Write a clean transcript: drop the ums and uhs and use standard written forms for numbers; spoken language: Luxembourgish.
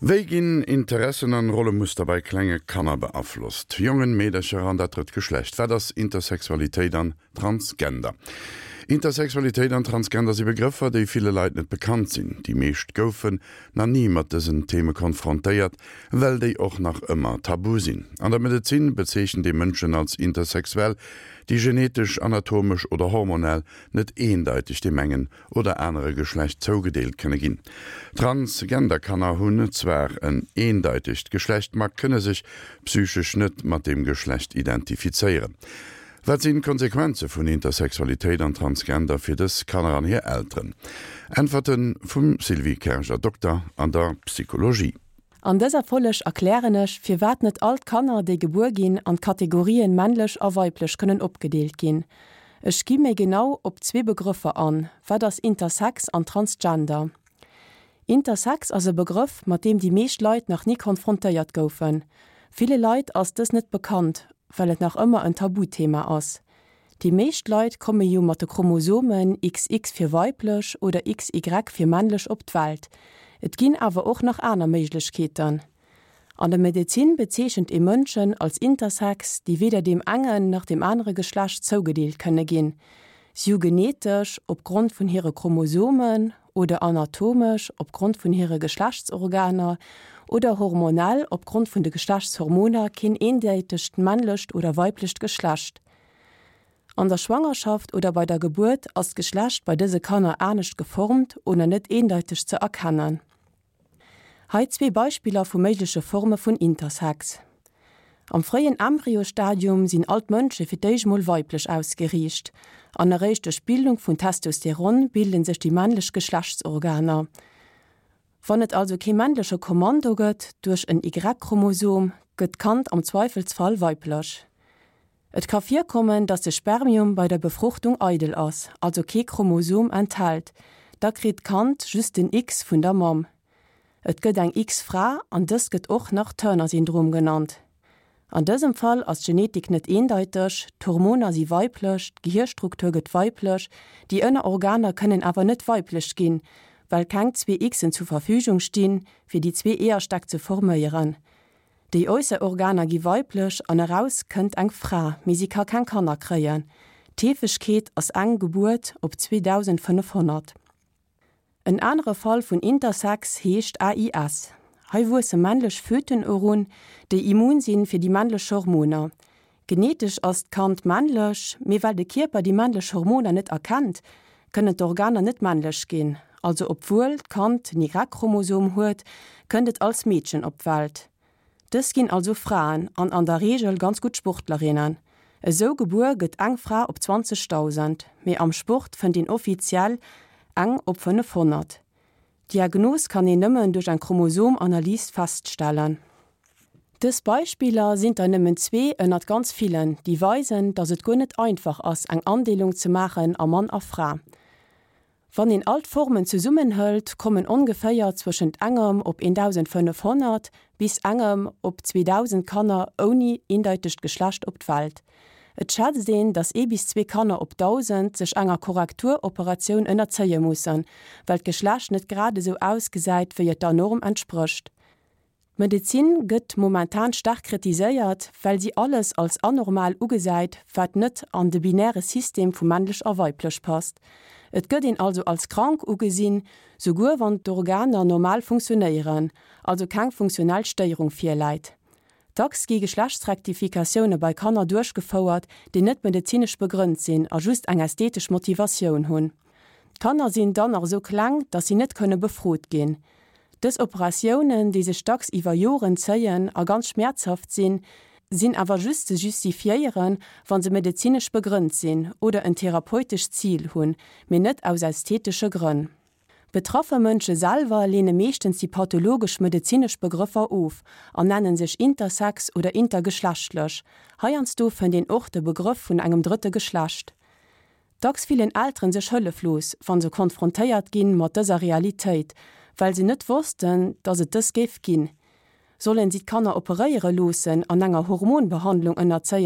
Wéi ginn Interessen an Rollemuster bei klenge Kanner beaflosst? Jongen, Meedercher an dat drëtt Geschlecht. Wat ass Intersexualitéit an Transgender? Intersexualitéit an Transgender si Begrëffer, déi ville Leit net bekannt sinn. Déi meescht goufen na ni mat dësen Theme konfrontéiert, well déi och nach ëmmer tabu sinn. An der Medezin bezeechent ee Mënschen als intersexuell, déi genetesch, anatomesch oder hormonell net eendeiteg deem engen oder anere Geschlecht zougedeelt kënne ginn. Transgender-Kanner hunn zwar en eendeitegt Geschlecht, ma kënne sech psychesch net mat deem Geschlecht identifizéieren. Wat sinn d'Konsequenze vun Intersexualitéit an Transgender fir dës Kanner an hir Elteren? Äntwerte vum Sylvie Kerger, Dokter an der Psychologie. An dëser Folleg erklären ech, firwat net all d'Kanner, déi gebuer ginn, an d'Kategorien männlech a weiblech kënnen opgedeelt ginn. Ech gi méi genau op zwee Begrëffer an, Wat ass Intersex an Transgender? Intersex ass e Begrëff, mat deem déi meescht Leit nach ni konfrontéiert goufen. Ville Leit ass dës net bekannt, well et nach ëmmer en Tabuthema ass. Déi meescht Leit komme jo mat de Chromosomen XX fir weiblech oder XY fir männlech op d'Welt. Et ginn awer och nach aner Méiglechkeeten. An der Medezin bezeechent ee Mënschen als intersex, déi weder deem engen nach deem anere Geschlecht zougedeelt kënne ginn. Si hu genetesch, opgrond vun hire Chromosomen, oder anatomesch, opgrond vun hire Geschlechtsorganer, oder hormonell, opgrond vun de Geschlechtshormoner, keen eendeitegt männlecht oder weiblecht Geschlecht. An der Schwangerschaft oder bei der Gebuert ass d'Geschlecht bei dëse Kanner anescht geformt oder net eendeiteg ze erkennen. Hei zwee Beispiller vu méigleche Forme vun Intersex. Am fréien Embryostadium sinn all d'Mënsche fir d'éischt mol weiblech ausgeriicht, an eréischt duerch d'Bildung vun Testosteron bilde sech déi männlech Geschlechtsorganer. Wann et also kee männleche Kommando gëtt duerch en Y-Chromosom, gëtt d'Kand am Zweifelsfall weiblech. Et ka virkommen, datt de Spermium bei der Befruchtung eidel ass, also kee Chromosom enthält, da kritt d'Kand just den X vun der Mamm. Et gëtt eng X-Fra an dëst gëtt och nach Turner-Syndrom genannt. An dësem Fall ass d'Genetik net eendeiteg, d'Hormoner si weiblech, d'Gehierstruktur gëtt weiblech, déi ënner Organer kënnen awer net weiblech ginn, well keng zwee Xen zur Verfügung stinn, fir déi zwee Eeërstäck ze forméieren. Déi äusser Organer gi weiblech an eraus kënnt eng Fra, mee si ka keng Kanner kréien. D'Heefegkeet ass eng Gebuert op 2.500. En anere Fall vun Intersex heescht AIS. Hei wuesse männlech Föten erun, déi immun sinn fir déi männlech Hormoner. Genetesch ass d'Kand männlech, mee well de Kierper déi männlech Hormoner net erkennt, kënnen d'Organer net männlech ginn. Also obwuel d'Kand den Y-Chromosom huet, kënnt et als Meedchen op d'Welt. Dës ginn also Fraen an an der Reegel ganz gutt Sportlerinnen. Esou gebuer gëtt eng Fra op 20.000, mee am Sport fënnt een offiziell eng op 500. D'Diagnos kann een nëmmen duerch eng Chromosomanalys feststellen. Dës Beispiller sinn der nëmmen zwee ënnert ganz villen, déi weisen, datt et guer net einfach ass eng Andeelung ze maachen a Mann a Fra. Wann een all d'Formen zesummen hëlt, kommen ongeféier zwëschent engem op 1.500 bis engem op 2.000 Kanner ouni eendeitegt Geschlecht op d'Welt. Et schätzt een, datt ee bis zwee Kanner op 1.000 sech enger Korrekturoperatioun ënnerzéie mussen, well d'Geschlecht net grad esou ausgesäit, wéi et der Norm entsprécht. D'Medezin gëtt momentan staark kritiséiert, well si alles als anormal ugesäit, wat net an de binäre System vu männlech a weiblech passt. Et gëtt een also als krank ugesinn, souguer wann d'Organer normal funktionéieren, also keng funktionell Stéierung virläit. Dacks gi Geschlechtsrektifikatioune bei Kanner duerchgefouert, déi net medezinesch begrënnt sinn a just eng ästhetesch Motivatioun hunn. D'Kanner sinn dann nach esou kleng, datt si net kënne befrot ginn. Dës Operatiounen, déi sech dacks iwwer Joren zéien a ganz schmäerzhaft sinn, sinn awer just ze justifiéieren, wa se medezinesch begrënnt sinn oder en therapeutescht Zil hunn, mee net aus ästhetesche Grënn. Betraffe Mënsche selwer leene meeschtens déi pathologesch medezinesch Begrëffer of an nennen sech intersex oder intergeschlechtlech. Heiansdo fënnt een och de Begrëff vun engem drëtte Geschlecht. Dacks fillen Elteren sech hëlleflos, wann se konfrontéiert ginn mat dëser Realitéit, well se net wossten, dass et dës géif ginn. Sollen si d'Kanner operéiere loossen an enger Hormonbehandlung ënnerzéien?